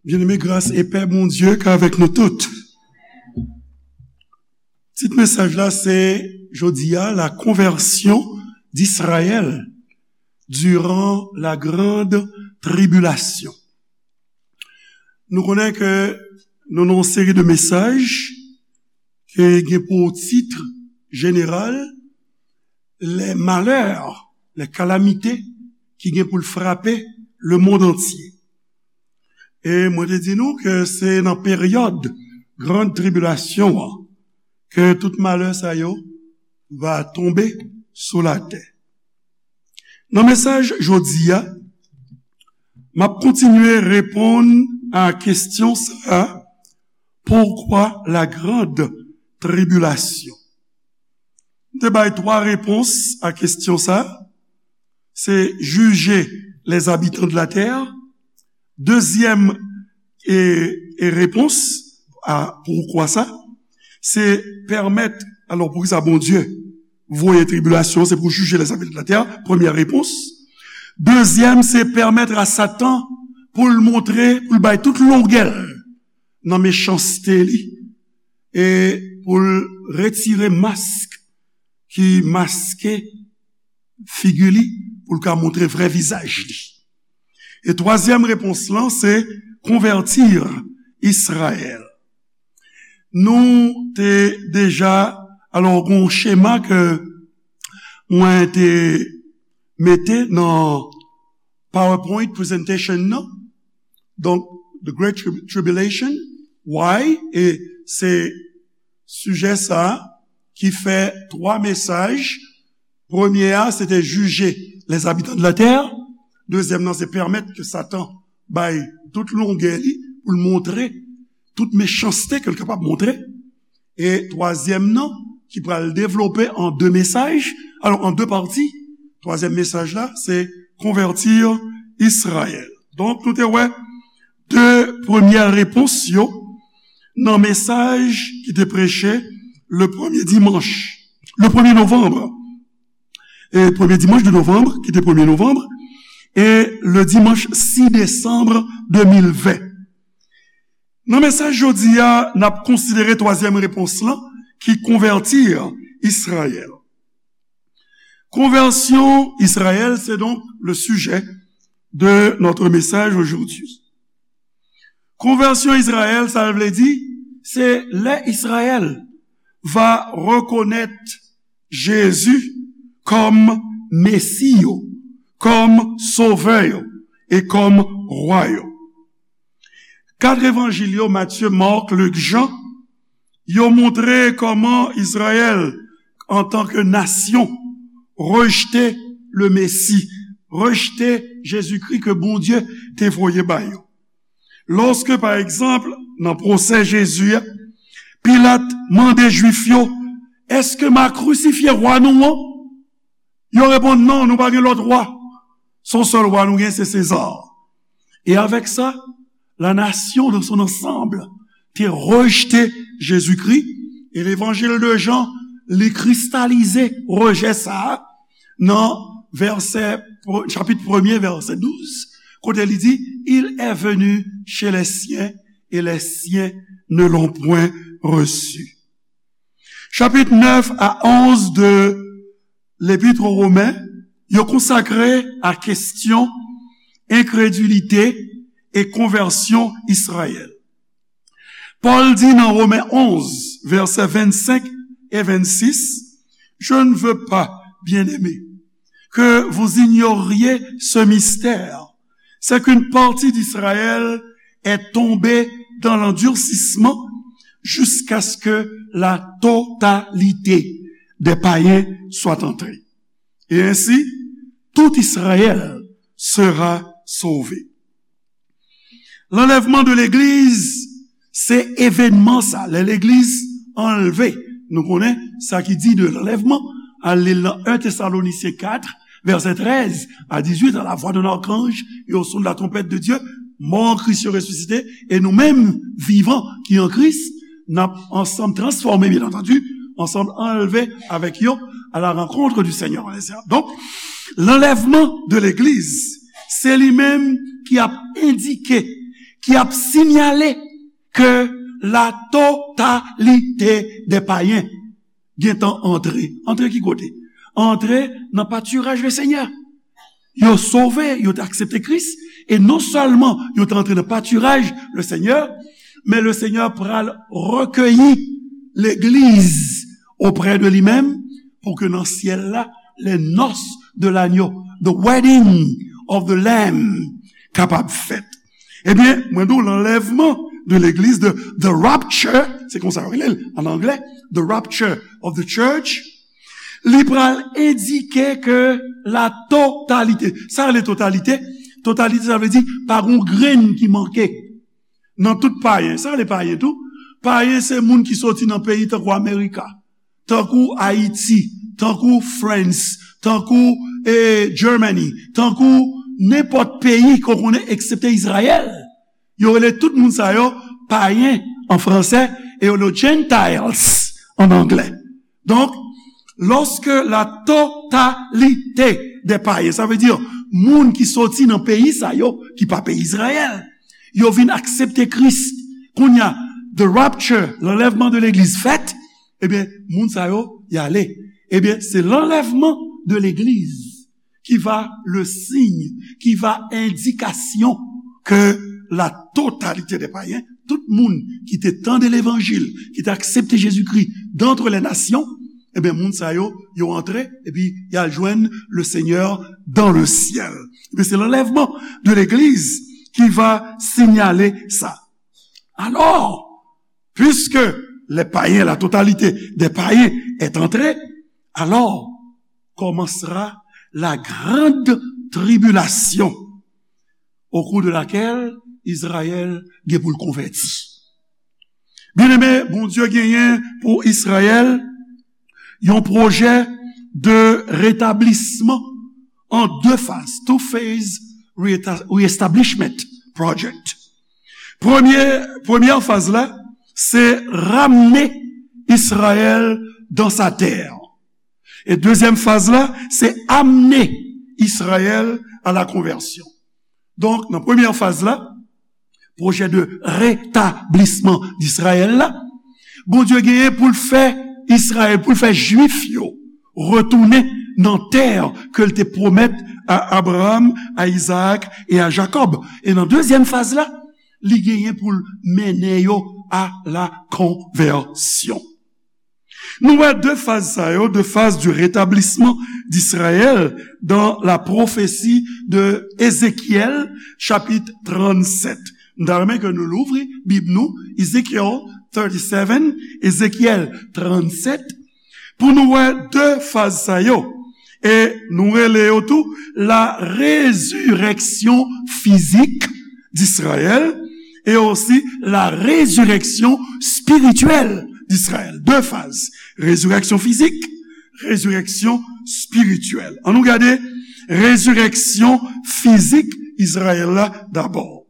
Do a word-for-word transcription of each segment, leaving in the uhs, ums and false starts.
Byeneme, gras e pè Bondye k avèk nou tout. Tit mesaj la se jodi a, la conversion d'Israël durant la grande tribulation. Nou konnen ke nou nan yon seri de mesaj ki gen pou tit jeneral les malheurs, les calamités ki gen pou l frape le monde entier. E mwen te di nou ke se nan peryòd grann tribilasyon an ke tout malè sa yo va tonbe sou latè. Nan mesaj jodi a, m ap kontinye reponn a kesyon sa a, pourquoi la grande tribulation? M te bay twa repons a kesyon sa. Se juger les habitants de la terre. Dezyèm e, e repons a pourquoi ça, se pèmèt, alò, poukisa Bondye voye tribilasyon, se pou jije les habitants de la terre, premyè repons. Dezyèm, se pèmèt a Satan pou l montre, pou l bay tout longè l nan mechanste li, e pou l retire mask ki maske figi li, pou l ka montre vrè vizaj li. E twazyèm repons lan, se convertir Israël. Nou te deja, alò, gen yon chema ke mwen te mete nan PowerPoint presentation nan. Donk, the Great Trib-, Tribulation, why, e se sijè sa a ki fè twa mesaj. Premye a, se te jije les habitants de la terre. Dezyèm nan, se pèmèt ke Satan bay tout longè li pou l montre tout mechanste ke l kapab montre. E twazyèm nan, ki pral devlope an de mesaj, alò, an de pati, twazyèm mesaj la, se convertir Israël. Donk, nou te wè de premyè repons yo nan mesaj ki te preche le premye dimanch, le premye novanm, e premye dimanch de novanm, ki te premye novanm, e le dimanch sis desanm de mil ven. Nan mesaj jodi a, n ap konsidere twazyèm repons lan, ki convertir Israël. Conversion Israël, c'est donc le sujet de notre message aujourd'hui. Conversion Israël, sa vle di, se lè Israël va reconnaître Jésus comme Messie yo, comme Sauveur yo, e comme Roi yo. Kat evanjil yo, Matthieu, Marc, Luc, Jean, yo montre kòman Izrayèl, antanke nasyon, rejte le Mesi, rejte Jezikri ke Bondye te voye ba yo. Lòske, pa egzanp, nan pwosè Jezi a, Pilat mande Jwif yo, "Èske m a krisifye wa nou an?" Yo reponn, "Non, nou pa gen lòt wa. Se yon sèl wa nou gen, se Seza." E avèk sa, la nation dans son ensemble te rejte Jezikri, e levanjil de Jan, li kristalize rejè sa a nan vèsè, chapit premye, vèsè douz, kote li di, "Il est venu chez les siens, et les siens ne l'ont point reçu." Chapit nèf a onz de Lepit o Women, yo konsakre a kesyon enkredilite e konvèsyon Izrayèl. Pòl di nan Women onz, vèsè vennsenk e vennsis, "Je ne veux pas, bien-aimés, que vous ignoriez ce mystère, c'est qu'une partie d'Israël est tombée dans l'endurcissement jusqu'à ce que la totalité des païens soit entrée. Et ainsi, tout Israël sera sauvé." Lanlèvman de legliz, se evènman sa, lè legliz anlve. Nou konnen sa ki di de lanlèvman, al li l nan en Tesalonisyen kat, vèsè trèz a dizuit, à la voix d'un archange et au son de la trompette de Dieu, mò an Kris yo resisite, e nou menm, vivan, ki an Kris, n ap ansanm transfòme, bien entendu, ansanm anlve avèk yo à la rencontre du Seigneur. Donk, lanlèvman de legliz, se li menm ki ap endike ki ap sinyale ke la totalite dè payen gentan antre. Antre ki kote? Antre nan patiraj le Senyè. Yo sove, yo te aksepte Kris, e non sèlman yo te antre nan patiraj le Senyè, men le Senyè pral rekeyi legliz oprè de li menm, pou ke nan syèl la, les noces de l'agneau, the wedding of the Lamb, kapab fèt. Ebyen, mwen di w, lanlèvman de legliz, de the rapture, se konsa yo rele l an anglè, the rapture of the church, li pral endike ke la totalite, sa rele totalite, totalite, sa vle di pa gon grenn ki manke nan tout payen. Sa rele payen tou. Payen se moun ki soti nan peyi tankou Amerika, tankou Ayiti, tankou France, tankou eh, Germany, tankou nenpòt peyi ke w konnen eksepte Izrayèl. Yo rele tout moun sa yo payen an fransè e yo rele yo Gentiles an anglè. Donk, lòske la totalite dè payen, sa vle di moun ki soti nan peyi sa yo, ki pa peyi Izrayèl, yo vin aksepte Kris, kounye a, the rapture, lanlèvman de legliz fèt, ebyen, moun sa yo, y ale. Ebyen, se lanlèvman de legliz ki va le signe, ki va endikasyon ke la totalite dè payen, tout moun ki te tande levanjil, ki te aksepte Jezikri d'antre les nations, ebyen, moun sa yo, yo antre, epi y al jwenn le Senyè dans le ciel. Ebyen, se lanlèvman de legliz ki va sinyale sa. Alò, puisque les païens, la totalité des païens est entrée, alors commencera la grande tribulation au cours de laquelle Izrayèl gen pou l konvèti. Byeneme, Bondye genyen pou Izrayèl yon pwojè de retablisman an de faz, two phase reeta- reestablishment project. Premye, premyè faz la, se ramne Izrayèl dans sa terre. E dezyèm faz la, se amne Izrayèl à la conversion. Donk, nan premyè faz la, pwojè de retablisman d'Izrayèl la, Bondye genyen pou l fè Izrayèl, pou l fè Jwif yo retounen nan tè ke l te pwomèt a Abraram, a Izaak e a Jakòb. E nan dezyèm faz la, li genyen pou l mennen yo a la konvèsyon. Nou wè de faz sa yo, de phase du rétablissement d'Israël dans la prophétie de Ézéchiel, chapitre trente-sept. M ta renmen ke nou louvri Bib nou, Ezekiel thirty-seven, Ezekyèl tranntsèt, pou nou wè de faz sa yo. E nou rele yo tou la résurrection physique d'Israël et aussi la résurrection spirituelle d'Israël. De faz. Résurrection physique, résurrection spirituelle. Ann nou gade résurrection physique Izrayèl la dabò.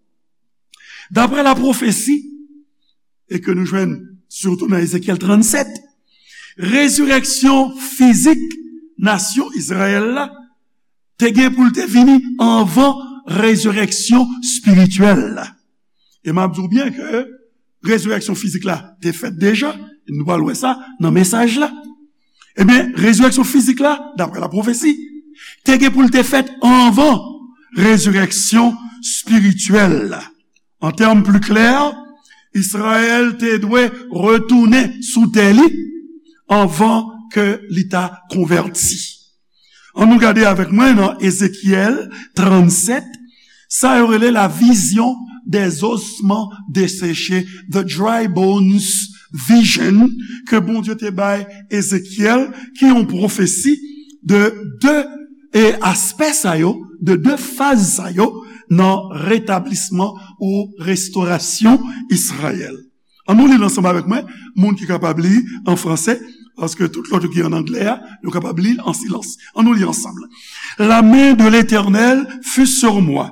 Daprè la pwofesi, e ke nou jwenn sitou nan Ezekyèl tranntsèt, rezirèksyon fizik nasyon Izrayèl la te gen pou l te vini anvan rezirèksyon espirityèl la. E m ap di w byen ke rezirèksyon fizik la te fèt deja, e nou pral wè sa nan mesaj la. Ebyen, rezirèksyon fizik la, daprè la pwofesi, te gen pou l te fèt anvan rezirèksyon espirityèl la. An tèm pli klè, Izrayèl te dwe retounen sou tè li anvan ke li ta konvèti. Ann nou gade avèk mwen nan Ezekyèl tranntsèt, sa yo rele la vision des ossements desséchés, the dry bones vision, ke Bondye te bay Ezekyèl, ki yon pwofesi de de e aspè sa yo, de de faz sa yo nan retablisman ou restorasyon Izrayèl. Ann nou li l ansanm avèk mwen, moun ki kapab li an fransè, paske tout lòt yo ki an anglè a, yo kapab li l an silans. Ann nou li ansanm. La main de l'Éternel fut sur moi,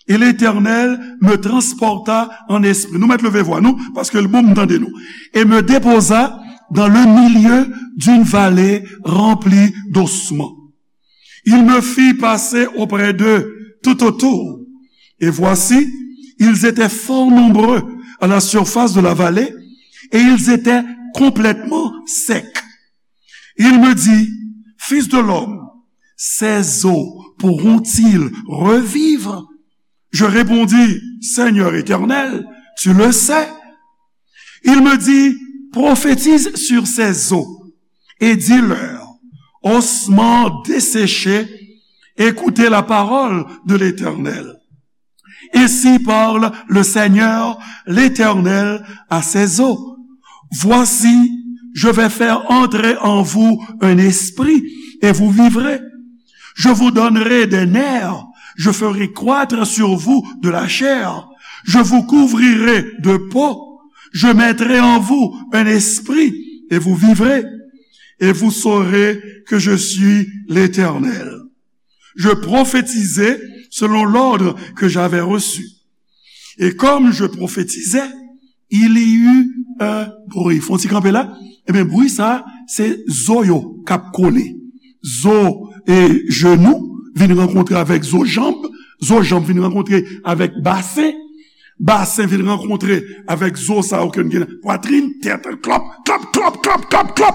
et l'Éternel me transporta en esprit. Nou mèt leve vwa nou, paske l bon m tande nou. Et me déposa dans le milieu d'une vallée remplie d'ossements. Il me fit passer auprès d'eux tout autour. Et voici, Ils étaient fort nombreux à la surface de la vallée et ils étaient complètement secs. Il me dit, Fils de l'homme, ces os pourront-ils revivre? Je répondis, Seigneur éternel, tu le sais. Il me dit, Prophétise sur ces os et dis-leur, Ossements desséchés, écoutez la parole de l'Éternel. Ainsi parle le Seigneur, l'Éternel, à ces os. Voici, je vais faire entrer en vous un esprit, et vous vivrez. Je vous donnerai des nerfs, je ferai croître sur vous de la chair, je vous couvrirai de peau, je mettrai en vous un esprit, et vous vivrez, et vous saurez que je suis l'Éternel. Je prophétisai selon l'ordre que j'avais reçu. Et comme je prophétisais, il y eut un bruit. Fon ti kanpe la. Ebyen, bri sa, se zo yo k ap kole. Zo e jenou vin rankontre avèk zo janb. Zo janb vin rankontre avèk basen. Basen vin rankontre avèk zo sa yo ke n gen nan pwatrin, tèt, klòp, klòp,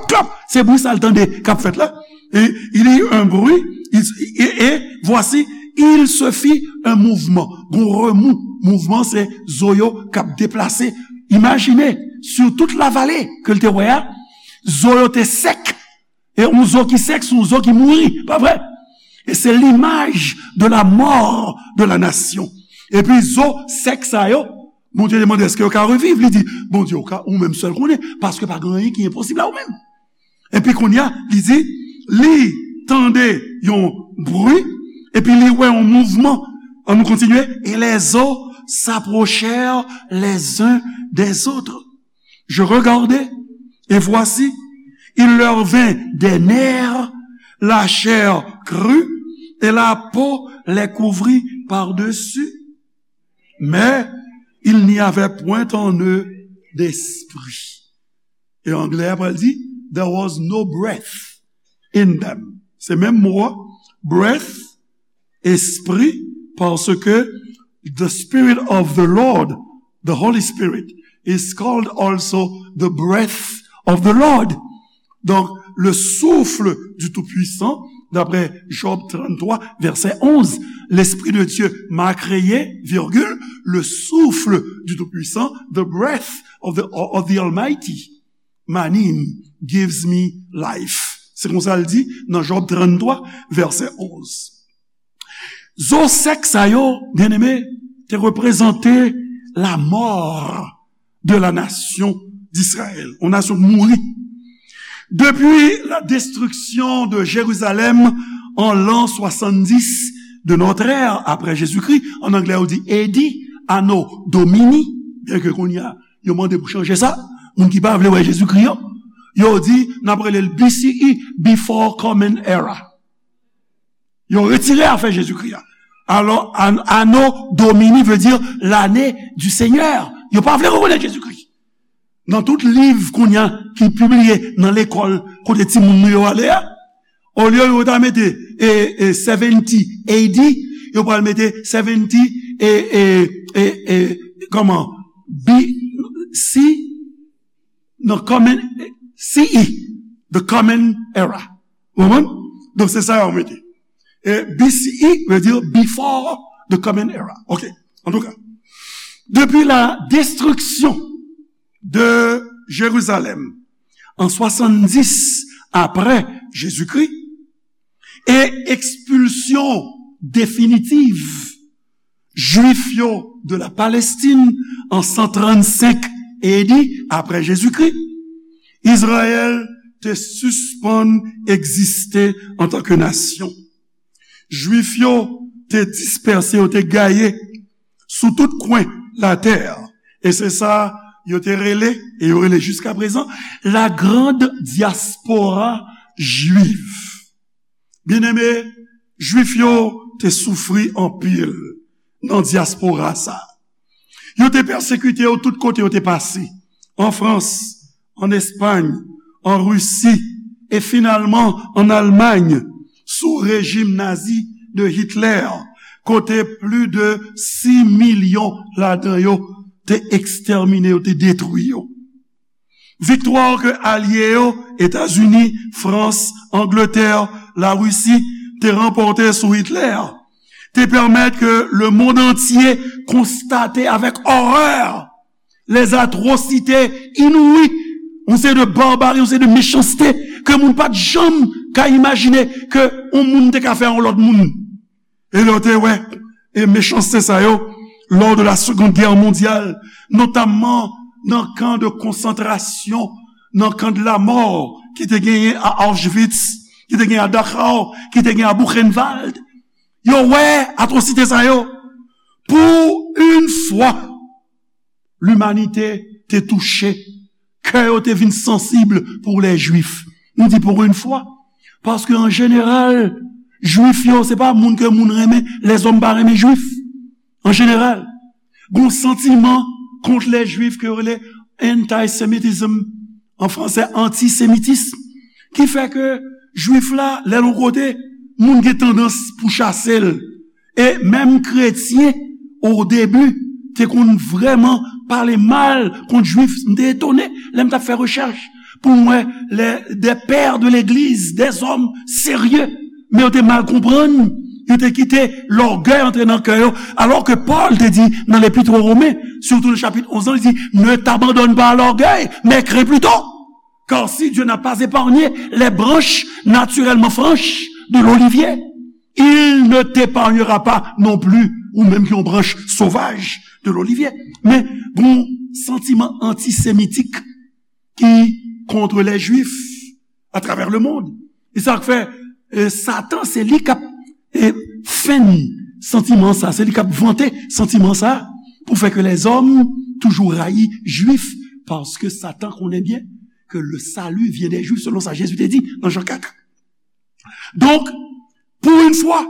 klòp. Se bri sa l tande k ap fèt la. Et il y eut un bruit, il- et, et voici, il se fit un mouvement. Gon remou, mouvman se zo yo k ap deplase. Imajine, sur toute la vallée ke l te wè a, zo yo te sèk. E yon zo ki sèk, se yon zo ki mouri, pa vre? E se l'image de la mort de la nation. Epi zo sèk sa yo, Bondye te mande, èske yo ka reviv? Li di, Bondye, ou ka, ou menm sèl konnen, paske pa gen anyen ki enposib a ou menm. Epi kounye a, li di, li tande yon bri, epi li wè yon mouvman. Ann nou kontinye. Et les os s'approchèrent les uns des autres. Je regardai, et voici, il leur vint des nerfs, la chair crut, et la peau les couvrit par-dessus. Mais il n'y avait point en eux d'esprit. E anglè a pral di, there was no breath in them. Se menm mo a, breath, espri, paske the Spirit of the Lord, the Holy Spirit, is called also the breath of the Lord. Donc, le souffle du Tout-Puissant, d'après Job trente-trois, verset onze, l'Esprit de Dieu m'a créé, virgule, le souffle du Tout-Puissant, the breath of the, of the Almighty, Manim, gives me life. Se konsa l di nan Job trannntwa, vèsè onz. Zo sèk sa yo, byeneme, te reprezante la mort de la nation d'Israël. Yon nasyon k mouri. Depuis la destruction de Jérusalem en l'an soixante-dix de notre ère, après Jésus-Christ, an anglè yo di A D, Anno Domini, byen ke kounye a, yo mande pou chanje sa, moun ki pa vle wè Jezikri an, yo di, n ap rele l B C E, Before Common Era. Yo retire afè Jezikri a. Alò, an-, Anno Domini vle di l'année du Seigneur. Yo pa vle rekonèt Jezikri. Nan tout liv kounye a ki pibliye nan lekòl kote timoun nou yo ale a, olye yo ta mete, e, e, seventy A D, yo pral mete seventy, e, e, e, e, kòman? B C, non, common, C E, the common era. Ou konprann? Donk, se sa yo mete. E B C E vle di before the common era. Ok. Antouka, depi la destriksyon de Jerizalèm an swasanndis apre Jezikri e ekspilsyon definitiv Jwif yo de la Palestine an san trannsenk A D apre Jezikri, Izrayèl te sispann egziste antanke nasyon. Jwif yo te dispèse, yo te gaye sou tout kwen latè. E se sa yo te rele, e yo rele jiskaprezan, la grande diaspora juive. Byeneme, Jwif yo te soufri anpil nan dyaspora sa. Yo te pèsekite yo tout kote yo te pase, an Frans, an Espay, an Risi, e finalman an Almay, sou rejim nazi de Hitler, kote plis de sis milyon ladan yo te ekstèmine, yo te detwi yo. Viktwa ke alye yo, Etazini, Frans, Angletè, Larisi, te ranpòte sou Hitler, te pèmèt ke lemonn antye konstate avèk òrè lèzatwosite inouï, yon seri de barbari, yon seri de mechanste ke moun pa t janm ka imajine ke yon moun te ka fè yon lòt moun. E lè w te wè e mechanste sa yo, lors de la Seconde Guerre mondiale, notamman nan kan de konsantrasyon, nan kan de la mort ki te genyen a Auschwitz, ki te genyen a Dachau, ki te genyen a Buchenwald, yo wè atwosite sa yo. Pou yon fwa, limanite te touche, kè yo te vin sansib pou lè Jwif. Nou di pou yon fwa, paske an jeneral, Jwif yo, se pa moun ke moun renmen, lèzòm pa renmen Jwif. An jeneral, gon santiman kont lè Jwif ke yo rele antisemitism, an fransè, antisemitis, ki fè ke Jwif la, lè l yon kote, moun gen tandans pou chase l. E menm kretyen, o debi, te konn vrèman pale mal kont Jwif. M te etone lè m t ap fè rechèch pou m wè lè de pè de legliz, de zòm serye, men yo te mal konprann, yo te kite lògèy antre nan kè yo. Alò ke Pòl te di nan Lepit o Women, sitou le chapit onz lan, li di, ne t'abandonne pas à l'orgueil, mais crains plutôt. Car si Dieu n'a pas épargné les branches naturellement franches de l'olivier, il ne t'épargnera pas non plus, ou menm ki yon branch sovaj de l'olivier. Men, gon santiman antisemitik ki kont lè Jwif atravè lemonn. E sa k fè, e, Satan, se li k ap, e, fèn santiman sa, se li k ap vante santiman sa, pou fè ke lèzòm toujou rayi Jwif, paske Satan konnen byen que le salut vient des Juifs, selon sa Jésus te di nan Jan kat. Donk, pou yon fwa,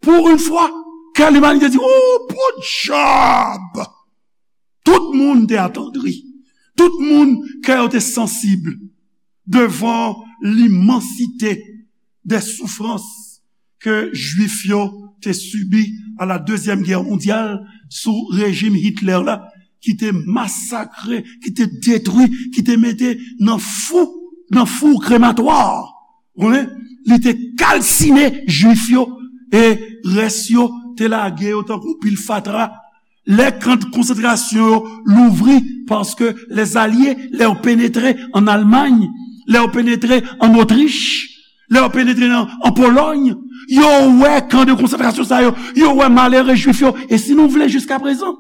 pou yon fwa, kè limanite di, oh, podyab! Tout moun te atandri. Tout moun kè yo te sansib devan limansite de soufrans ke Jwif yo te sibi a la Dezyèm Gè Mondyal sou rejim Hitler la, ki te masakre, ki te detwi, ki te mete nan fou, nan fou krematwa. Ou konnen, li te kalsine Jwif yo, e rès yo te lage yo tankou pil fatra. Lè kan de konsantrasyon yo louvri, paske lèzalye, lè yo penetre an Almay, lè yo penetre an Otrich, lè yo penetre nan, an Polòy, yo wè kan de konsantrasyon sa yo, yo wè malere Jwif yo. E si nou vle, jiskaprezan,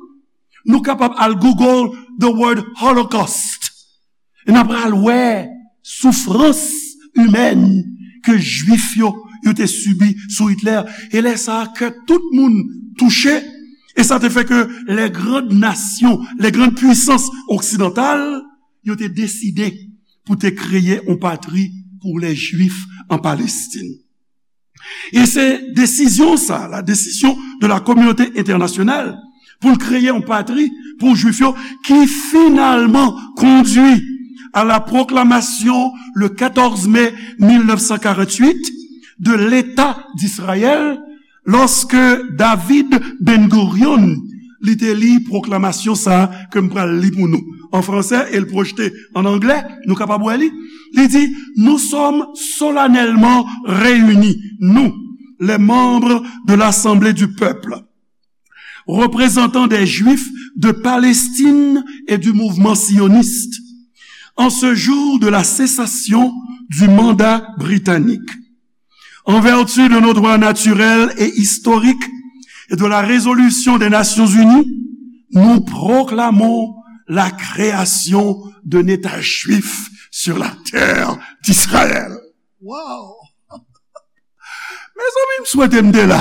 nou kapab al Google the word Holocaust. E n ap pral wè soufrans imèn ke Jwif yo, yo te sibi sou Hitler. E lè sa a, kè tout moun touche. E sa te fè ke les grandes nations, les grandes puissances occidentales, yo te deside pou te kreye yon patri pou lè Jwif an Palestin. E se desizyon sa, la décision de la communauté internationale, pou l kreye yon patri pou Jwif yo, ki finalman kondui à la proclamation, le quatorze mai mille neuf cent quarante-huit, de l'État d'Israël, lòske David Ben Gurion, li te li pwoklamasyon sa a ke m pral li pou nou an fransè e l pwojte an anglè, nou kapab wè li. Li di, nous sommes solennellement réunis, nous, les membres de l'Assemblée du peuple, représentants des Juifs de Palestine et du mouvement sioniste, en ce jour de la cessation du mandat britannique. En vertu de nos droits naturels et historiques et de la résolution des Nations Unies, nous proclamons la création d'un État juif sur la terre d'Israël. Wow! Mezanmi, m swete m te la.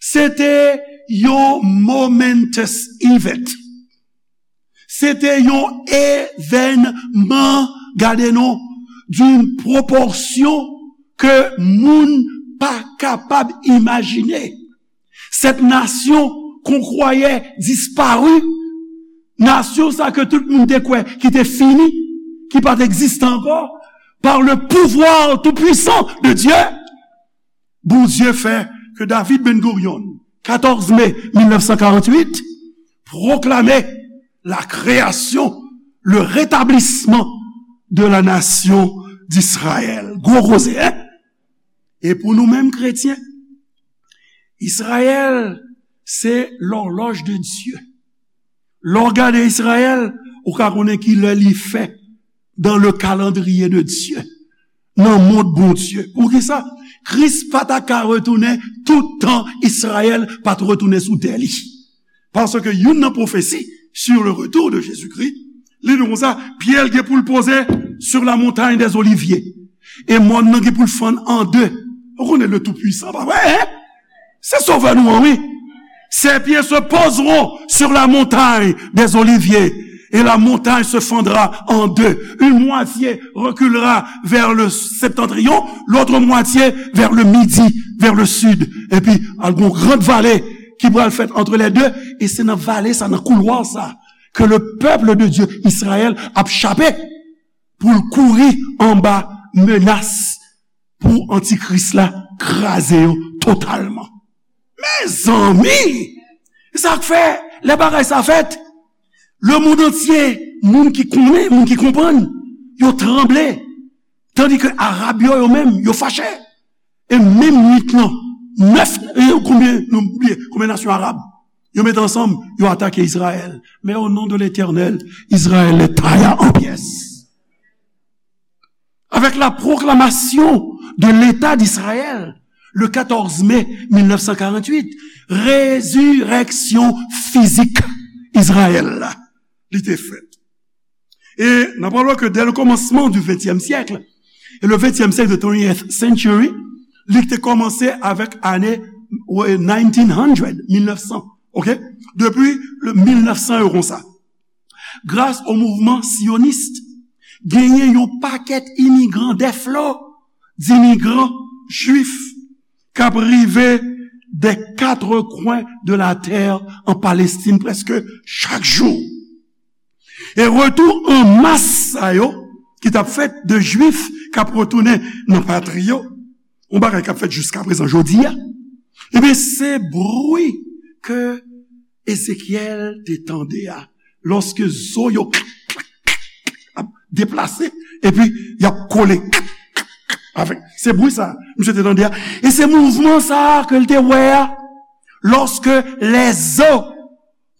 Se te yon momentous event. Se te yon evènman, gade non, d'une proportion ke moun pa kapab imajine. Cette nation qu'on croyait disparue, nasyon sa ke tout moun te kwè ki te fini, ki pa t egziste ankò, par le pouvoir tout-puissant de Dieu, Bondye fè que David Ben Gurion, quatorze mai mille neuf cent quarante-huit, proclamait la création, le rétablissement de la nation d'Israël. Gwo koze, en? E pou nou menm kretyen, Izrayèl se lòlòj de Dye. Lè w gade Izrayèl, ou ka konnen ki lè li fè dans le calendrier de Dieu, nan mond Bondye. Poukisa? Kris pa ta ka retounen tout tan Izrayèl pa t retounen sou tè li. Paske youn nan pwofesi sur le retour de Jésus-Christ, li di konsa, pye l gen pou l poze sur la montagne des Oliviers. E mòn nan gen pou l fann an de. Ou konnen le Tout-Puissant, pa vre, en? Se Sovè nou an, wi. Ses pieds se poseront sur la montagne des Oliviers, et la montagne se fendra en deux. Une moitié reculera vers le septentrion, l'autre moitié vers le midi, vers le sud. Epi, al gon gran vale ki pral fèt entre les deux, e se nan vale sa, nan koulwa sa, ke le peuple de Dieu, Izrayèl, ap chape pou l kouri anba menas pou antikris la kraze yo totalman. Mezanmi! Se sa k fè, lè bagay sa fèt, lemonn antye, moun ki konnen, moun ki konprann, yo tranble. Tandike Arab yo, yo menm, yo fache. E menm nwit lan, nèf, e konbyen, nou bliye, konbyen nasyon arab? Yo mete ansanm, yo atake Izrayèl. Men o non de Letènèl, Izrayèl est taillé en pièces. Avec la proclamation de l'État d'Israël, le quatorze mai mille neuf cent quarante-huit, résurrection physique Izrayèl la, li te fèt. E n ap wè ke dès le commencement du vingtième siècle, et le vingtième siècle, the twentieth century, li te kòmanse avèk ane nineteen hundred, mil nèf san, ok? Depi le mil nèf san yo konsa. Gras o mouvman siyonis, genyen yon pakèt imigran, des flots d'immigrants juifs k ap rive des quatre coins de la terre en Palestine prèske chak jou. E retou an mas sa yo ki t ap fèt de Jwif k ap retounen nan patri yo, yon bagay k ap fèt jiska prezan jodi a, ebyen, se bri ke Ezekyèl te tande a, lòske zo yo ap deplase, epi y ap kole avèk. Se bri sa misye te tande a. E se mouvman sa a ke l te wè a, lòske lèzo,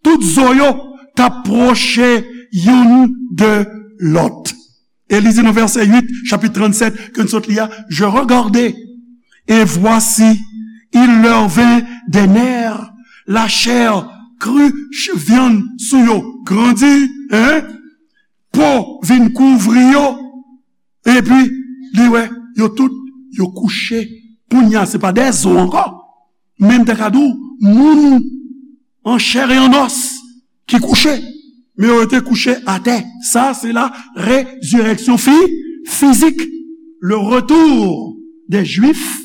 tout zo yo t ap pwoche youn de lòt. E li di nan vèsè uit, chapit trannsèt, ke n sot li a, Je regardai, et voici, il leur vint des nerfs, la chair crut, vyann sou yo grandi, en, po vin kouvri yo, epi li wè yo tout, yo kouche. Kounye a, se pa de zo ankò, men m ta ka di w, moun an chè e an os ki kouche, men yo rete kouche atè. Sa, se la résurrection fi-, physique, le retour des Juifs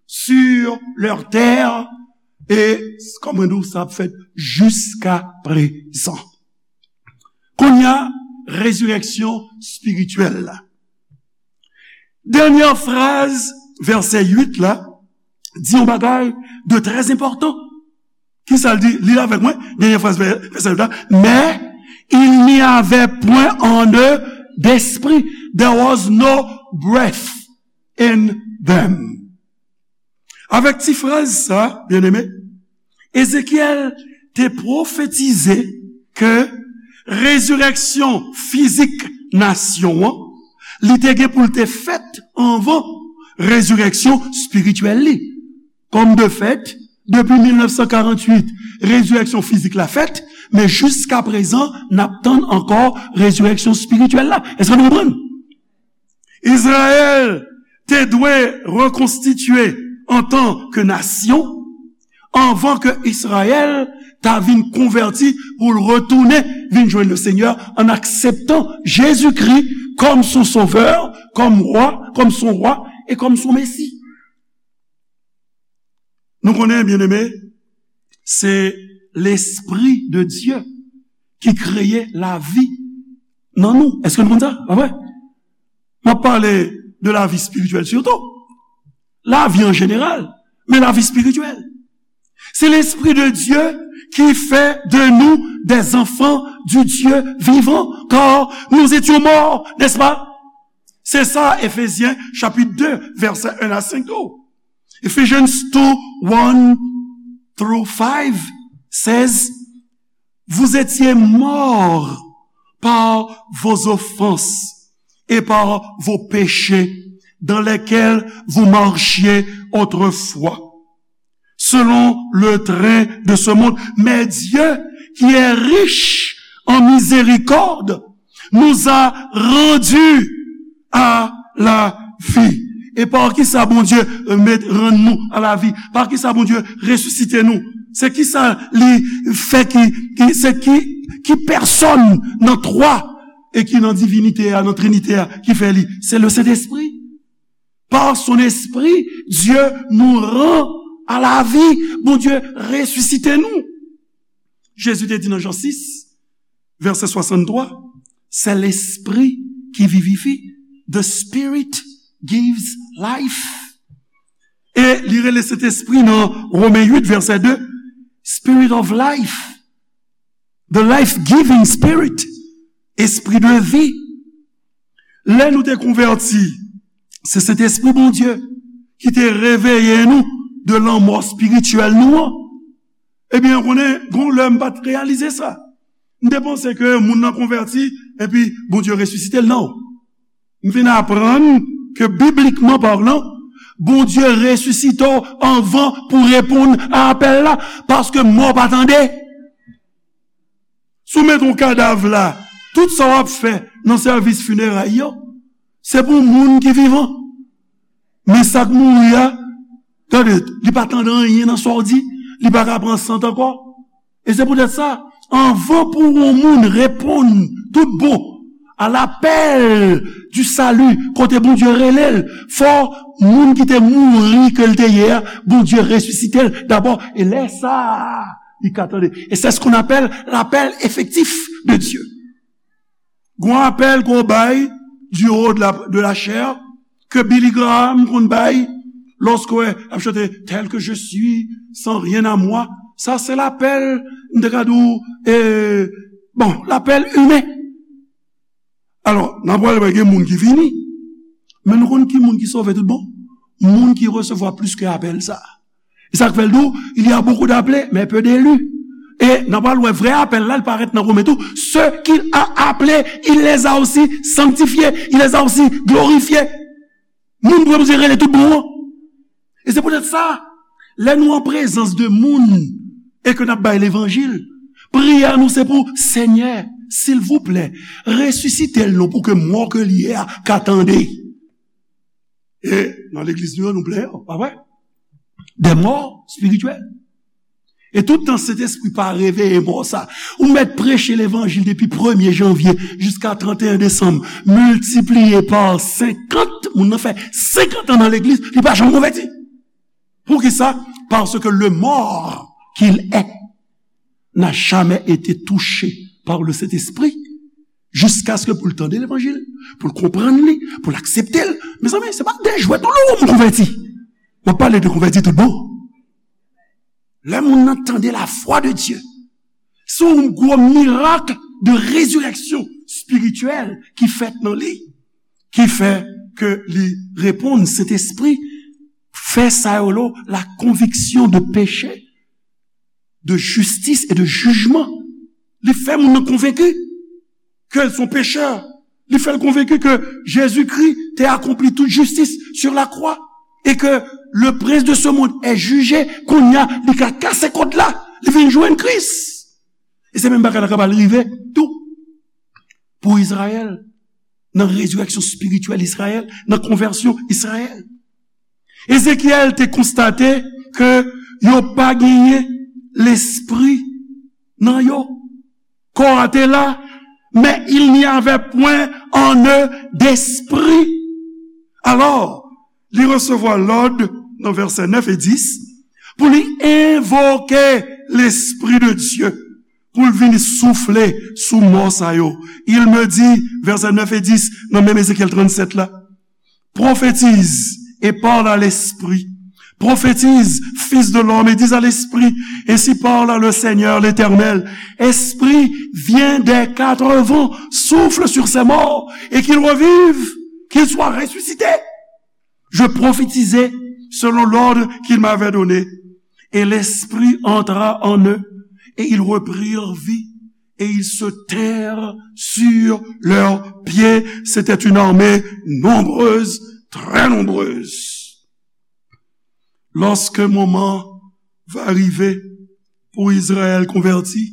sur leur terre, e, kòm mwen di w, sa ap fèt jiska prezan. Kounye a, rezireksyon espirityèl la. Dènyè fraz vèsè uit la di yon bagay de trè enpòtan. Kisa l di? Li avèk mwen, dènyè fraz vè-, vèsè uit la. Mais il n'y avait point en eux d'esprit. There was no breath in them. Avèk ti fraz sa, byeneme, Ezekyèl te pwofetize ke rezireksyon fizik nasyon an, li te gen pou l te fèt anvan rezireksyon espirityèl li. Kòm de fèt, depi mil nèf san karant uit, rezireksyon fizik la fèt, men jiska prezan, n ap tann ankò rezireksyon espirityèl la. Èske nou konprann? Izrayèl te dwe rekonstitye antanke nasyon anvan ke Izrayèl ta vin konvèti pou l retounen vin jwenn le Senyè an akseptan Jezikri kòm son Sovè, kòm Wa, kòm son Wa e kòm son Mesi. Nou konnen, byeneme, se Lespri de Dye ki kreye lavi nan nou. Èske nou konn sa? Pa vre? M ap pale de lavi espirityèl sitou. Lavi an jeneral. mais la vie spirituelle. C'est l'Esprit de Dieu qui fait de nous des enfants du Dieu vivant, car nous étions morts, n'est-ce pas? C'est ça, Éphésiens chapitre deux, versets un à cinq. Oh. Ephesians two, one through five says, vous étiez morts par vos offenses et par vos péchés dans lesquels vous marchiez autrefois, selon le train de ce monde. Mais Dieu, qui est riche en miséricorde, nous a rendus à la vie. E pa kisa Bondye, euh, met, rann nou a la vi? Pa kisa Bondye resisite nou? Se kisa li fè ki, ki, se ki, ki pèsòn nan twa e ki nan divinite a, nan trinite a, ki fè li? C'est le Saint-Esprit. Par son esprit, Dieu nous rend à la vie. Bondye resisite nou. Jezi te di nan Jan sis, vèsè swasanntwa, c'est l'esprit qui vivifie. The Spirit gives life. E li rele Sentespri nan Romen uit, vèsè de, Spirit of life. The life-giving Spirit. Espri de vi. Lè nou te konvèti, se Sentespri Bondye ki te reveye nou de lanmò espirityèl nou an. Ebyen, ou konnen, gon lè m pa t reyalize sa. M te panse ke moun nan konvèti, epi Bondye resisite l. Non. M vin aprann ke, biblikman palan, Bondye resisite w anvan pou reponn a apèl la, paske mò pa tande. Si w mete yon kadav la, tout sa w ap fè nan sèvis fineray yo, se pou moun ki vivan. Men sa k mouri a, tande, li pa tande anyen nan sa w di, li pa ka pran sant ankò. E se poutèt sa, anvan pou yon moun reponn tout bon a lapèl di sali, kote Bondye rele l, fò moun ki te mouri ke l te ye a, Bondye resisite l dabò. E lè sa a, li ka tande. Et c'est ce qu'on appelle l'appel effectif de Dieu. Gon apèl ke w bay du haut de la, de la chair, ke Billy Graham konn bay, lòske w ap chante, tel que je suis, sans rien à moi. Sa se lapèl, m te ka di w, e, bon, lapèl imen. Alò, n ap pral wè gen moun ki vini. Men nou konn ki moun ki sove tout bon? Moun ki resevwa plis ke apèl sa. E sa k fè l di w, il y a beaucoup d'appelés, mais peu d'élus. E n ap pral wè vrè apèl la, l parèt nan Women tou. Ceux qu'il a appelés, il les a aussi sanctifiés, il les a aussi glorifiés. Moun pou Bondye rele tout bon an. E se poutèt sa, lè nou an prezans de moun e ke n ap bay levanjil, priyè nou se pou, Senyè, silvouplè, resisite l non pou ke mò ke l ye a ka tande. E nan legliz nou yo, nou plen, pa vre? Des morts spirituels. E tout tan Sentespri pa reveye mò sa, ou mèt preche levanjil depi premye janvye jiska tranteyen desanm, miltipliye pa senkant, moun nan fè senkant an nan legliz, li pa janm konvèti. Poukisa? Parce que le mort qu'il est n'a jamais été touché par le Saint-Esprit, jusqu'à ce que pou l tande levanjil, pou l konprann li, pou l aksepte l. Mezanmi, se pa de jwèt non, lè yon moun konvèti. M ap pale de konvèti tout bon. Lè moun nan tande la voix de Dieu, se yon gwo mirak de résurrection spirituelle ki fèt nan li, ki fè ke li reponn, Sentespri fè sa yo lo la conviction de péché, de justice et de jugement. Li fè moun nan konvenki ke l se yon pechè. Li fè l konvenki ke Jezikri te akonpli tout jistis sur la croix et que le prince de ce monde est jugé. Kounye a, li ka kase kòd la, li vin jwenn Kris. E se menm bagay la k ap al rive tou pou Izrayèl, nan rezirèksyon espirityèl Izrayèl, nan konvèsyon Izrayèl. Ezekyèl te konstate ke yo pa genyen lespri nan yo. Kò a te la, mais il n'y avait point en eux d'esprit. Alò, li resevwa lòd nan vèsè nèf e dis pou li envoke Lespri de Dye pou l vin soufle sou mò sa yo. Il me dit, vèsè nèf e dis nan menm Ezekyèl trannsèt la, prophétise et parle à l'esprit, Prophétise, fils de l'homme, et dis à l'esprit, ainsi parle le Seigneur l'Éternel, Esprit, viens des quatre vents, souffle sur ces morts, et qu'ils revivent, qu'ils soient ressuscités. Je prophétisai selon l'ordre qu'il m'avait donné, et l'Esprit entra en eux, et ils reprirent vie, et ils se tinrent sur leurs pieds. C'était une armée nombreuse, très nombreuse. Lorsque moman va rive pou Izrayèl konvèti,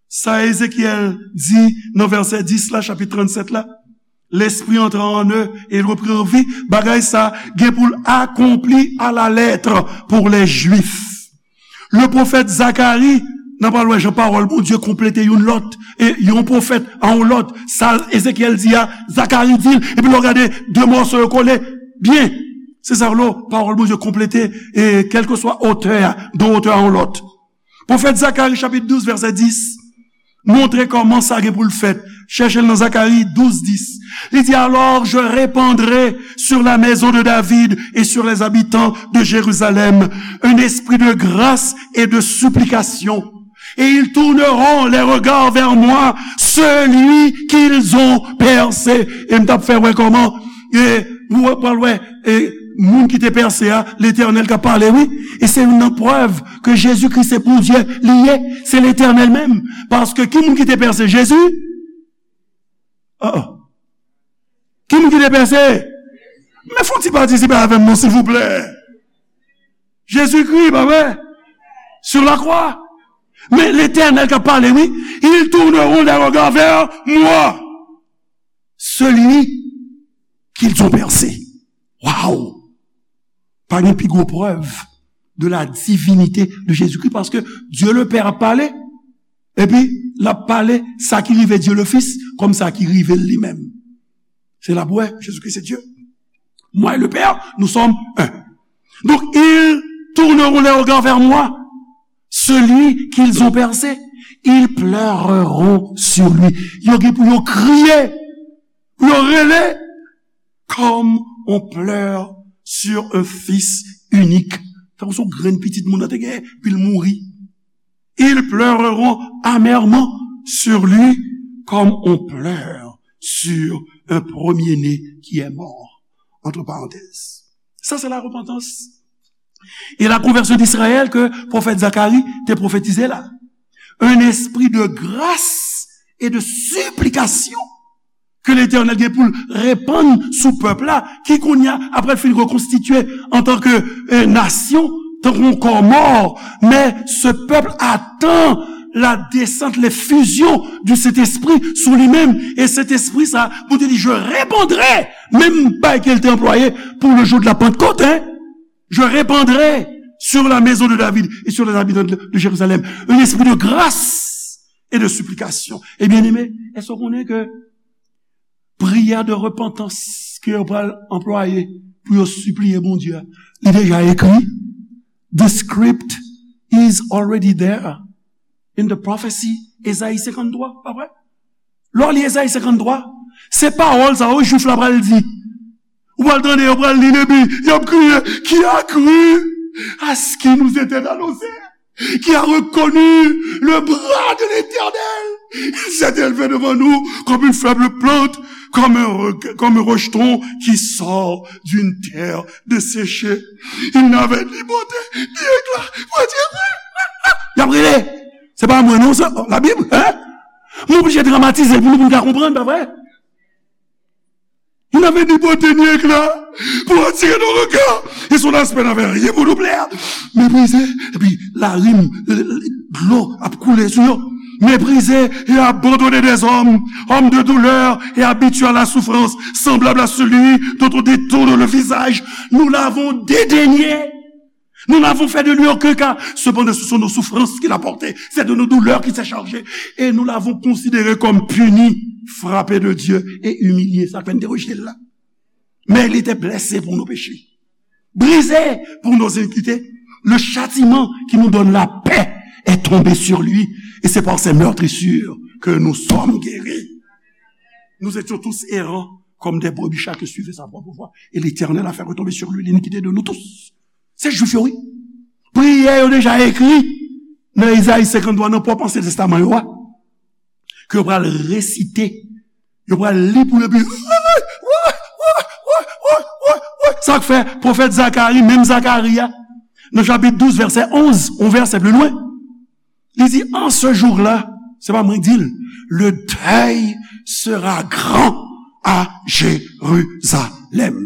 sa Ezekyèl di nan vèsè dis la, chapit trannsèt la, L'esprit entra en eux et ils reprirent vie. Bagay sa gen pou l akonpli à la lettre pour les Juifs. Le prophète Zacharie, n ap al wè jan pawòl Bondye konplete youn lòt, e yon pwofèt a yon lòt. Sa Ezekyèl di a, Zakari di l, epi lè w gade de mòso yo kole byen. Se sa w lo, pawòl Bondye konplete, e kèlkeswa otè a, de yon otè a yon lòt. Pwofèt Zakari, chapit douz, vèsè dis, montre kòman sa gen pou l fèt. Chèche l nan Zakari douz dis. Li di, Alors je répandrai sur la maison de David et sur les habitants de Jérusalem un esprit de grâce et de supplication. Et ils tourneront les regards vers moi, celui qu'ils ont percé. E m t ap fè wè kòman, e, ou pral wè, e, moun ki te pèse a, Letènèl k ap pale, wi. E se youn nan prèv ke Jezikri se Bondye li ye, se Letènèl menm. Paske ki moun ki te pèse Jezi? Oh, oh. Ki moun ki te pèse? Men fè yon ti patisipe avè m non, silvouplè. Jezikri, pa vre? Sur la croix. Men Letènèl k ap pale, wi. Ils tourneront les regards vers moi, celui qu'ils ont percé. Waw! Pa gen pi gwo prèv de la divinité de Jésus-Christ, paske Dieu le Père ap pale, epi l ap pale sa ki rive Dieu le Fils kòm sa ki rive l li menm. Se la pou wè, Jésus-Christ c'est Dieu. Moi et le Père, nous sommes un. Donc, ils tourneront les regards vers moi, celui qu'ils ont percé. Ils pleureront sur lui. Yo gen pou yo kriye, pou yo rele, comme on pleure sur un fils unique. Tankou se yon grenn pitit moun nan te gen, epi l mouri. Ils pleureront amèrement sur lui comme on pleure sur un premier-né qui est mort. Entre parenthèses. Ça, c'est la repentance. Et la conversion d'Israël que prophète Zacharie te prophétisé là. Un esprit de grâce et de supplication ke Letènèl gen pou l repann sou pèp la, ki kounye a, apre l fin rekonstitye antanke, eh, nasyon, tankou yon kò mò, men se pèp atann la desant, l'effusion du Saint-Esprit sou li menm. E Sentespri sa, Bondye di, je répandrai, menm bagay ke l te anplwaye pour le jour de la Pentecôte, hein, je répandrai sur la maison de David et sur les habitants de, de Jérusalem un esprit de grâce et de supplication. E byeneme, èske w konnen ke priyè de repantans ke yo pral anplwaye pou yo sipliye Bondye a, li deja ekri? The script is already there in the prophecy, Ezayi senkanntwa, pa vre? Lè w li Ezayi senkanntwa, se pawòl sa yo Jwif la pral di. Ou pral tande yo pral li, epi y ap kriye, qui a cru à ce qui nous était annoncé? Qui a reconnu le bras de l'Éternel? Il s'est élevé devant nous comme une faible plante, comme un re-, comme un rejeton qui sort d'une terre desséchée. Il n'avait ni beauté, ni éclat. Mwen di, y ap rele. Se pa mwen non, se Labib, hein? M oblije dramatize l pou nou, pou nou ka konprann, pa vre? Il n'avait ni beauté ni éclat pour attirer nos regards, et son aspect n'avait rien pour nous plaire. Méprisé, epi larim, dlo ap koule sou yo. Méprisé et abandonné des hommes, homme de douleur et habitué à la souffrance, semblable à celui dont on détourne le visage. Nous l'avons dédaigné. Nous n'avons fait de lui aucun cas. Cependant, ce sont nos souffrances qu'il a portées. C'est de nos douleurs qu'il s'est chargé. Et nous l'avons considéré comme puni, frappé de Dieu et humilié. Sa k fè n te rejte l la. Mais il était blessé pour nos péchés, brisé pour nos iniquités. Le châtiment qui nous donne la paix est tombé sur lui. Et c'est par ses meurtrissures que nous sommes guéris. Nous étions tous errants comme des brebis, chacun suivait sa propre voie. Et l'Éternel a fait retomber sur lui l'iniquité de nous tous. Se Jwif yo, wi. Priyè yo deja ekri nan Izayi senkanntwa, nan pwòp Ansyen Testaman yo a, ke yo pral resite, yo pral li pou yo, epi, sa k fè pwofèt Zakari, menm Zakari a, nan chapit douz, vèsè onz, yon vèsè pli lwen, li di, en ce jour-là, se pa mwen k di l, le deuil sera grand à Jérusalem.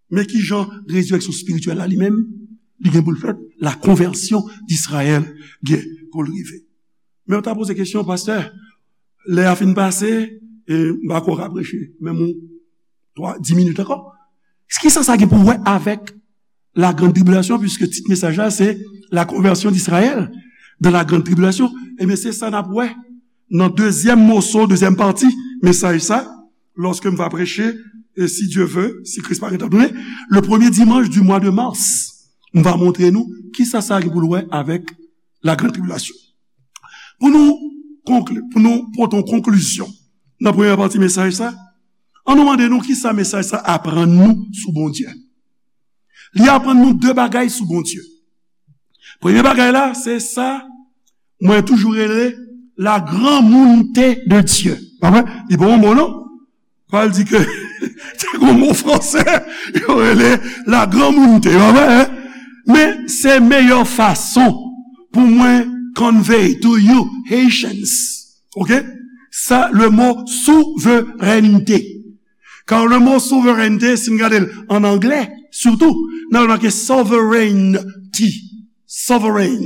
Men ki jan rezirèksyon espirityèl la li menm, li gen pou l fèt, la konvèsyon d'Israël gen pou l rive. Men w ta poze kesyon, pastè, lè a fin pase, e m pa kwè w ka preche menm yon twa, dis minit ankò. Kisa sa gen pou wè avèk la grande tribulation, puisque tit mesaj la se la conversion d'Israël dans la grande tribulation. Ebyen, se sa n ap wè nan dezyèm moso, dezyèm pati mesaj sa, lorsque m va prêcher, et si Dieu veut, si Kris pa gentan tounen, le premier dimanche du mois de mars, m va montre nou kisa sa gen pou l wè avèk la grande tribulation. Pou nou konkli, pou nou pote yon konklizyon nan premyè pati mesaj sa, ann nou mande nou kisa mesaj sa aprann nou sou Bondye. Li aprann nou de bagay sou Bondye. Premye bagay la, se sa mwen toujou rele la granmounte de Dye. Pa vre? Li pa yon mo non. Pral di ke se yon mo fransè, yo rele la granmounte, pa vre, hein? Men se meyè fason pou mwen convey to you Haitians, ok? Sa, le mo souveraineté. Kar le mo souveraineté, si n gade l an anglè, sitou, n ap wè make sovereignty. Sovereign.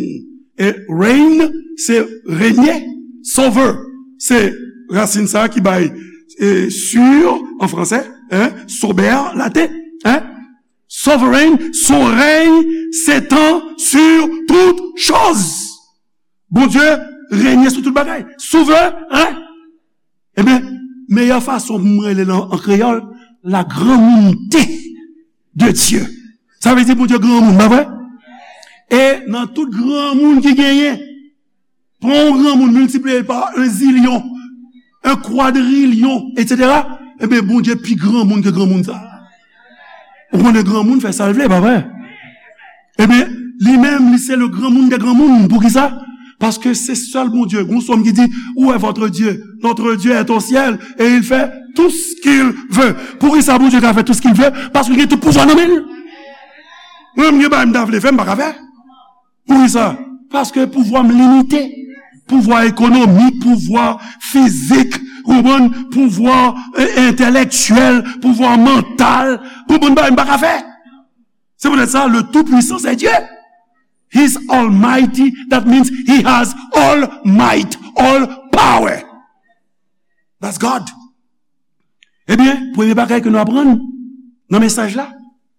E reign, se renye. Sover, se rasin sa ki bay, e, sur an fransè, hein, sober, laten, hein. Sovereign, son rèy s'étend sur toutes choses. Bondye renye sou tout bagay. Souveren. Ebyen, meyè fason pou mwen rele l an kreyòl, la granmounte de Dye. Sa vle di Bondye granmoun, pa vre? E nan tout granmoun ki genyen, pran yon granmoun, miltipliye l pa un zilyon, un kwadrilyon, etsetera, ebyen, Bondye pi granmoun ke granmoun sa. Ou konnen granmoun fè sa l vle, pa vre? Ebyen, li menm, li se le granmoun dè granmoun. Poukisa? Paske se sèl Bondye. Gon sòm ki di, où est votre Dieu? Notre Dieu est au ciel et il fait tout ce qu'il veut. Poukisa Bondye ka fè tout ce qu'il veut? Paske li gen tout pouvwa nan men l. Mwen menm, gen bagay m ta vle fè, m pa ka fè. Poukisa? Paske pouvwa m limite. Pouvwa ekonomik, pouvwa fizik, konprann? Pouvwa, e, entèlektyèl, pouvwa mantal. Gon bann bagay m pa ka fè. Se poutèt sa, le Tout-Puissant, c'est Dieu. He's almighty, that means he has all might, all power. That's God. Ebyen, premye bagay ke nou aprann nan mesaj la,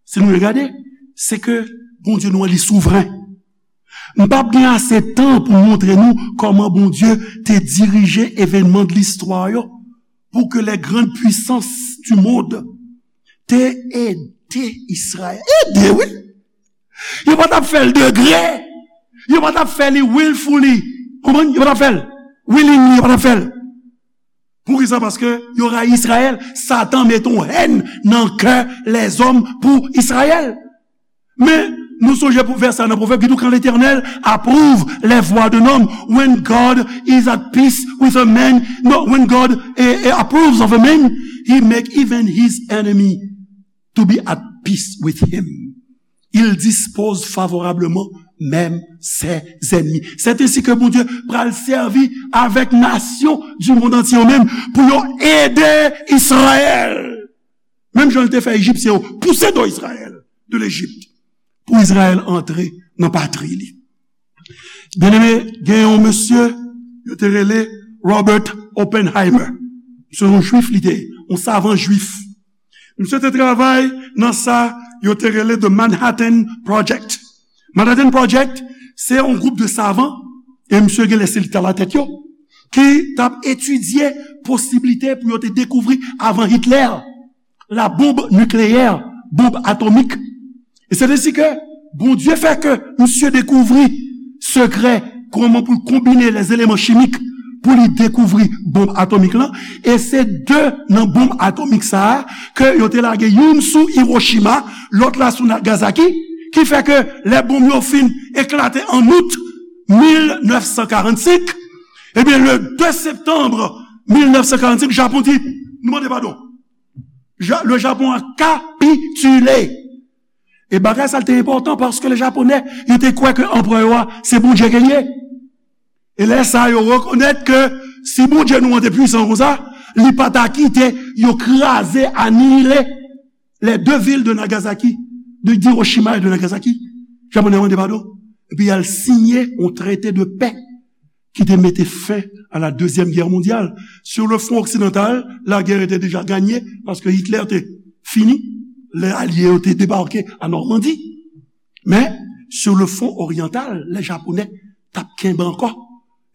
si nou regade, se ke Bondye nou an, li souvren. M p ap gen ase tan pou m montre nou kòman Bondye te dirije evènman de listwa yo pou ke les grandes puissances du monde te ede Izrayèl. Ede, wi! Yo pa t ap fè l de gré. Yo pa t ap fè li willfully. Konprann? Yo pa t ap fè l willingly, yo pa t ap fè l. Poukisa? Paske yo rayi Izrayèl. Satan mete yon hèn nan kè lèzòm pou Izrayèl. Men, nou sonje pou vèsè nan Pwovèb ki di, quand l'Éternel approuve les voies d'un homme, when God is at peace with a man, no, when God, eh, eh, approves of a man, he make even his enemy to be at peace with him. Il dispose favorablement même ses ennemis. C'est ainsi que Bondye pral sèvi avèk nasyon du monde entier yo menm pou yo ede Izrayèl. Menm jan l te fè Ejipsyen yo pouse do Izrayèl de Lejip pou Izrayèl antre nan patri li. Byeneme, gen yon mesye yo te rele Robert Oppenheimer. Se yon jwif li te ye, yon savan jwif. Misye te travay nan sa yo te rele The Manhattan Project. Manhattan Project, se yon gwoup de savan, e misye gen lè se li t alatèt yo, ki t ap etidye posiblite pou yo te dekouvri avan Hitler la bonb nikleyè, bonb atomik. E se ainsi que Bondye fè ke misye dekouvri sekrè kòman pou l konbine les éléments chimiques pou li dekouvri bonb atomik lan. E se de nan bonb atomik sa a ke yo te lage youn sou Hiroshima, lòt la sou Nagasaki, Ki fè ke lè bonm yo fin eklate an out mil nèf san karannsenk, ebyen, le de septanm mil nèf san karannsenk, Japon di, nou mande padon. Ja-, le Japon a kapitile. E bagay sa te enpòtan paske le Japonè, yo te kwè ke anperè a, se Bondye ke l ye. E lè sa, yo rekonèt ke si Bondye nou an te pwisan konsa, li pa ta kite yo kraze, anile les deux villes de Nagasaki, de Hiroshima et de Nagasaki. Japonè mande padon. Epi y al siyen yon trete de pè ki te mete fen a la Deuxième Guerre mondiale. Sur le front occidental, la guerre était déjà gagnée, paske Hitler te fini, lè alye yo te debake a Nòmandi. Men, sur le front oriental, lè Japonè t ap kenbe ankò.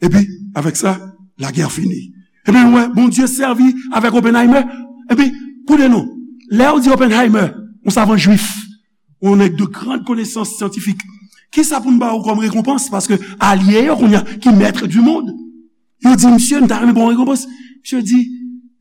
Epi, avèk sa, la guerre fini. Epi, nou wè, Bondye sèvi avèk Oppenheimer. Epi, koute non, lè yo di Oppenheimer, yon savan jwif, yon nèg de grande connaissance scientifique, kisa pou n ba ou kòm rekonpans? Paske alye yo kounye a, ki maître du monde, yo di, misye, nou ta renmen ba w rekonpans. Misye di,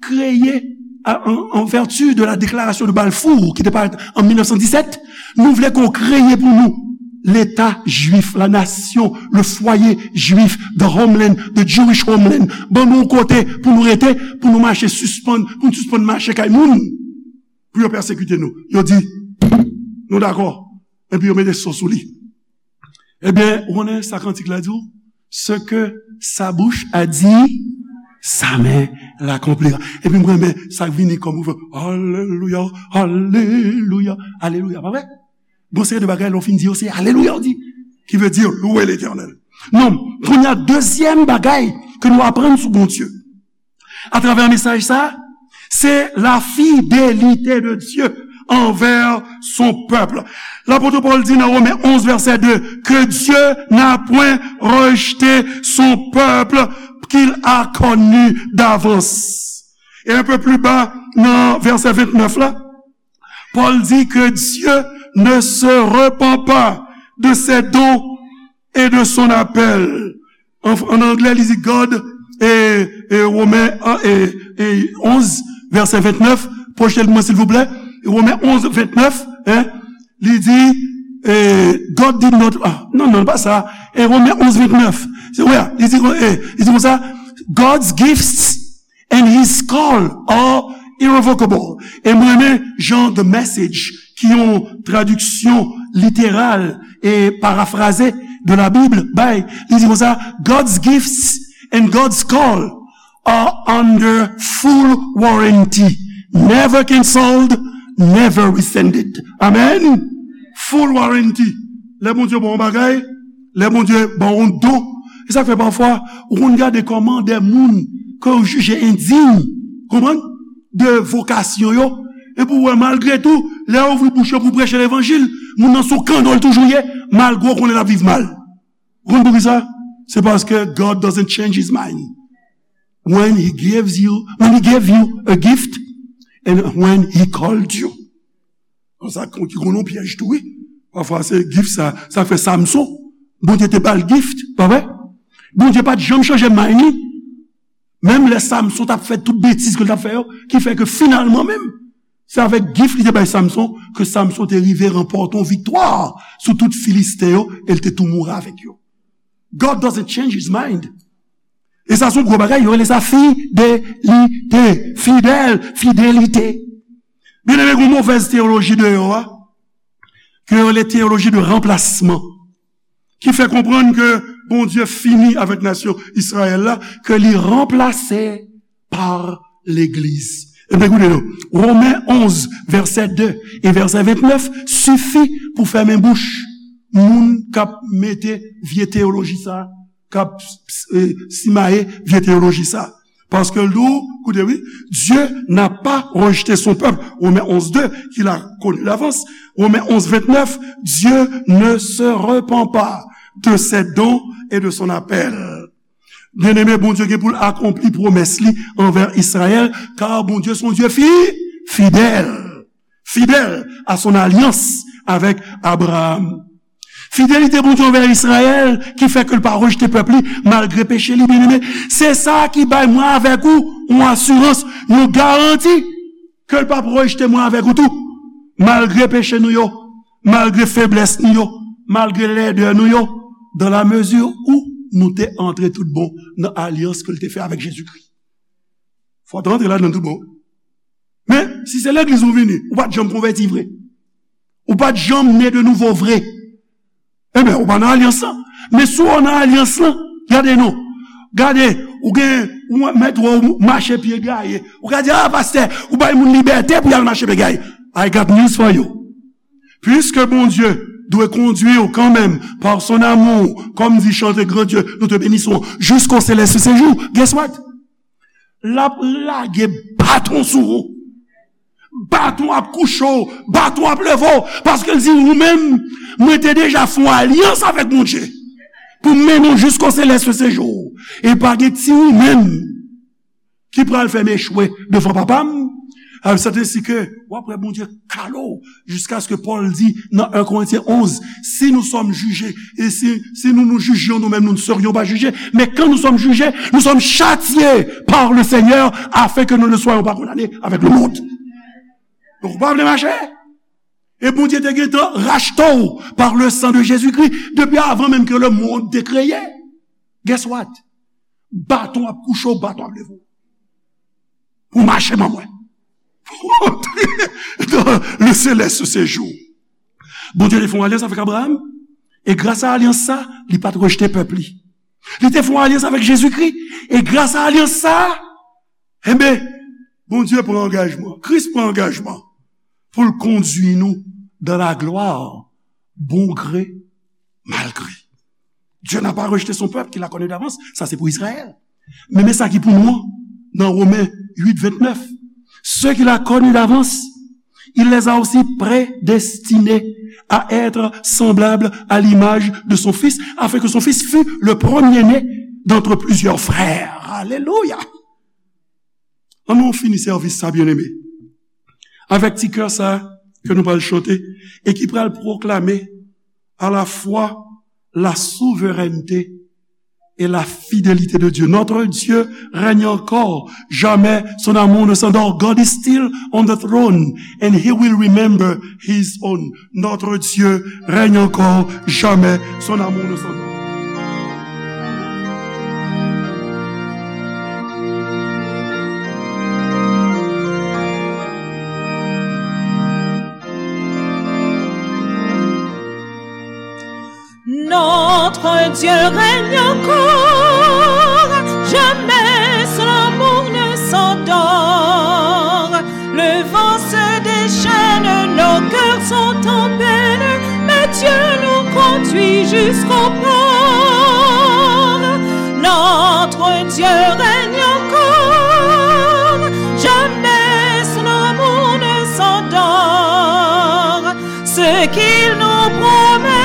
kreye, a, en, en vertu de la déclaration de Balfour, ki te parèt an mil nèf san disèt, nou vle ke w kreye pou nou Leta jwif, la nation, le foyer juif, the homeland, the Jewish homeland. Ban nou yon kote pou nou rete, pou nou mache sispann, pou nou sispann mache kay moun, pou yo pèsekite nou. Yo di, nou dakò. Epi yo mete son sou li. Ebyen, ou konnen sa kantik la di w? Ce que sa bouche a dit, sa main l'accomplira. Epi m renmen sa k vini kòm refren, alelouya, alelouya, alelouya. Pa vre? Gon seri de bagay, lè w fin di yo, se alelouya w di. Ki vle di, louwe Letènèl. Non, kounye a, dezyèm bagay ke nou aprann sou Bondye, atravè mesaj sa, se la fidelite de Dieu envers son peuple. Lapot Pòl di nan Women onz, vèsè de, que Dieu n'a point rejeté son peuple qu'il a connu d'avance. Et un peu plus bas, nan vèsè vennèf la, Pòl di que Dieu ne se repent pas de ses dons et de son appel. An, an anglè, li di God, e, e Women, e, e onz, vèsè vennèf, pwoche l pou mwen, silvouplè. Women onz, vennèf, en, li di, e, God did not, ah, non, non, pa sa. E Women onz, vennèf. Se, wè, li di, e, li di konsa, God's gifts and his call are irrevocable. E m renmen jan The Message, ki yon tradiksyon literal e parafraze de la Bible, bay, li di konsa, God's gifts and God's call are under full warranty, never canceled, never rescinded. Amen. Full warranty. Lè Bondye ba w yon bagay, lè Bondye ba w yon don, e sa k fè pafwa ou konn gade kòman de moun ke w jije endiy, konprann, de vokasyon yo, epi w wè malgre tou, lè w ouvri bouch yo pou preche levanjil, moun nan sou kanno l toujou ye, malgre w konnen l ap viv mal. Ou konn poukisa? Se paske God doesn't change his mind. When he gives you, when he gave you a gift and when he called you. Sa ki konn yon pyèj tou, wi. Pafwa se gift sa, sa fè Samson, Bondye te ba l gift, pa vre? Bondye pa t janm chanje mind li. Menm lè Samson t ap fè tout betiz ke l t ap fè yo, ki fè ke finalman menm, se avèk gift li te bay Samson ke Samson te rive ranpòte yon viktwa sou tout Filisten yo, e l te tou mouri avèk yo. God doesn't change his mind. E sa se yon gwo bagay, yo rele sa fidelite, fidèl, fidelite. Byeneme, gen yon movèz teyoloji deyò a, ke yo rele teyoloji de ranplasman, ki fè konprann ke Bondye fini avèk nasyon Izrayèl la, ke li ranplase pa legliz. Ebyen, koute non, Women onz, vèsè de e vèsè vennèf sifi pou fèmen bouch moun k ap mete vye teyoloji sa, k ap, e, simaye vye teyoloji sa. Paske l di w, koute wi, Dieu n'a pas rejeté son peuple, Women onz de, qu'il a connu d'avance, Women onz, vennèf, Dieu ne se repent pas de ses dons et de son appel. Byeneme, Bondye gen pou l akonpli pwomès li anvè Izrayèl, kar Bondye se yon Dye fi, fidèl, fidèl à son alliance avec Abraham. Fidelite Bondye anvè Izrayèl ki fè ke l pa rejte pèp li malgre peche li, byeneme. Se sa ki bay mwen avèk ou yon asirans, yon garanti ke l p ap rejte mwen avèk ou tou, malgre peche nou yo. malgre feblès nou yo, malgre lèdè nou yo, dans la mesure où nou te antre tout bon nan alyans ke l te fè avèk Jezikri. Fò w te antre ladan tout bon. Men, si se legliz ou vini, ou pa t janm konvèti vre. Ou pa t janm ne de nouvo vre. Ebyen, ou pa nan alyans lan. Men si w nan alyans lan, gade non. Gade, ou gen, ou mèt wè w mache pye gaye. Ou ka di, "Ah, pastè, ou bay moun libète pou y al mache pye gaye." I got news for you. Puisque Bondye dwe kondui w kanmenm par son amour, comme dit chanter grand Dieu, nous te bénissons jusqu'au céleste séjour. Guess what? L ap lage baton sou ou. Baton ap kouche w, baton ap leve w, paske l di ou menm, mwen te deja fè yon alyans avèk Bondye pou m mennen w jusqu'au céleste séjour. E pa gen ti ou menm ki pral fè m echwe devan Papa m. Sèt ensi ke w ap wè Bondye kale w, jiskaske Pòl di nan en Korentyen onz, si nous sommes jugés, et si, si nous nous jugions nous-mêmes, nous ne serions pas jugés. Mais quand nous sommes jugés, nous sommes châtiés par le Seigneur afin que nous ne soyons pas condamnés avec le monde. Donk, ou pa vle mache? E Bondye te gentan rachte w par le sang de Jésus-Christ depi avan menm ke lemonn te kreye. Guess what? Baton ap kouche w, baton ap leve w. Pou mache ban mwen. Dans le céleste séjour. Bondye te fè yon alyans avèk Abraham. E gras a alyans sa, li pa t rejte pèp li. Li te fè yon alyans avèk Jezikri. E gras a alyans sa, enben, Bondye pran angajman. Kris pran angajman pou l kondui nou dans la gloire, bon gré, mal gré. Dieu n'a pas rejeté son peuple qu'il a connu d'avance. Sa se pou Izrayèl. Men, men sa ki pou nou an, nan Women uit vennèf. Ceux qu'il a connus d'avance, il les a aussi prédestinés à être semblables à l'image de son Fils, afin que son Fils fût le premier-né d'entre plusieurs frères. Alelouya! An nou fini sèvis sa, byeneme, avèk ti kè sa ke nou pral chante e ki pral pwoklame à la fois la souveraineté et la fidélité de Dieu. Notre Dieu règne encore, jamais son amour ne s'endort. God is still on the throne and he will remember his own. Notre Dieu règne encore, jamais son amour ne s'endort. Notre Dieu règne encore, jamais son amour ne s'endort. Le vent se déchaîne, nos cœurs sont en peine, mais Dieu nous conduit jusqu'au port. Notre Dieu règne encore, jamais son amour ne s'endort. Ce qu'il nous promet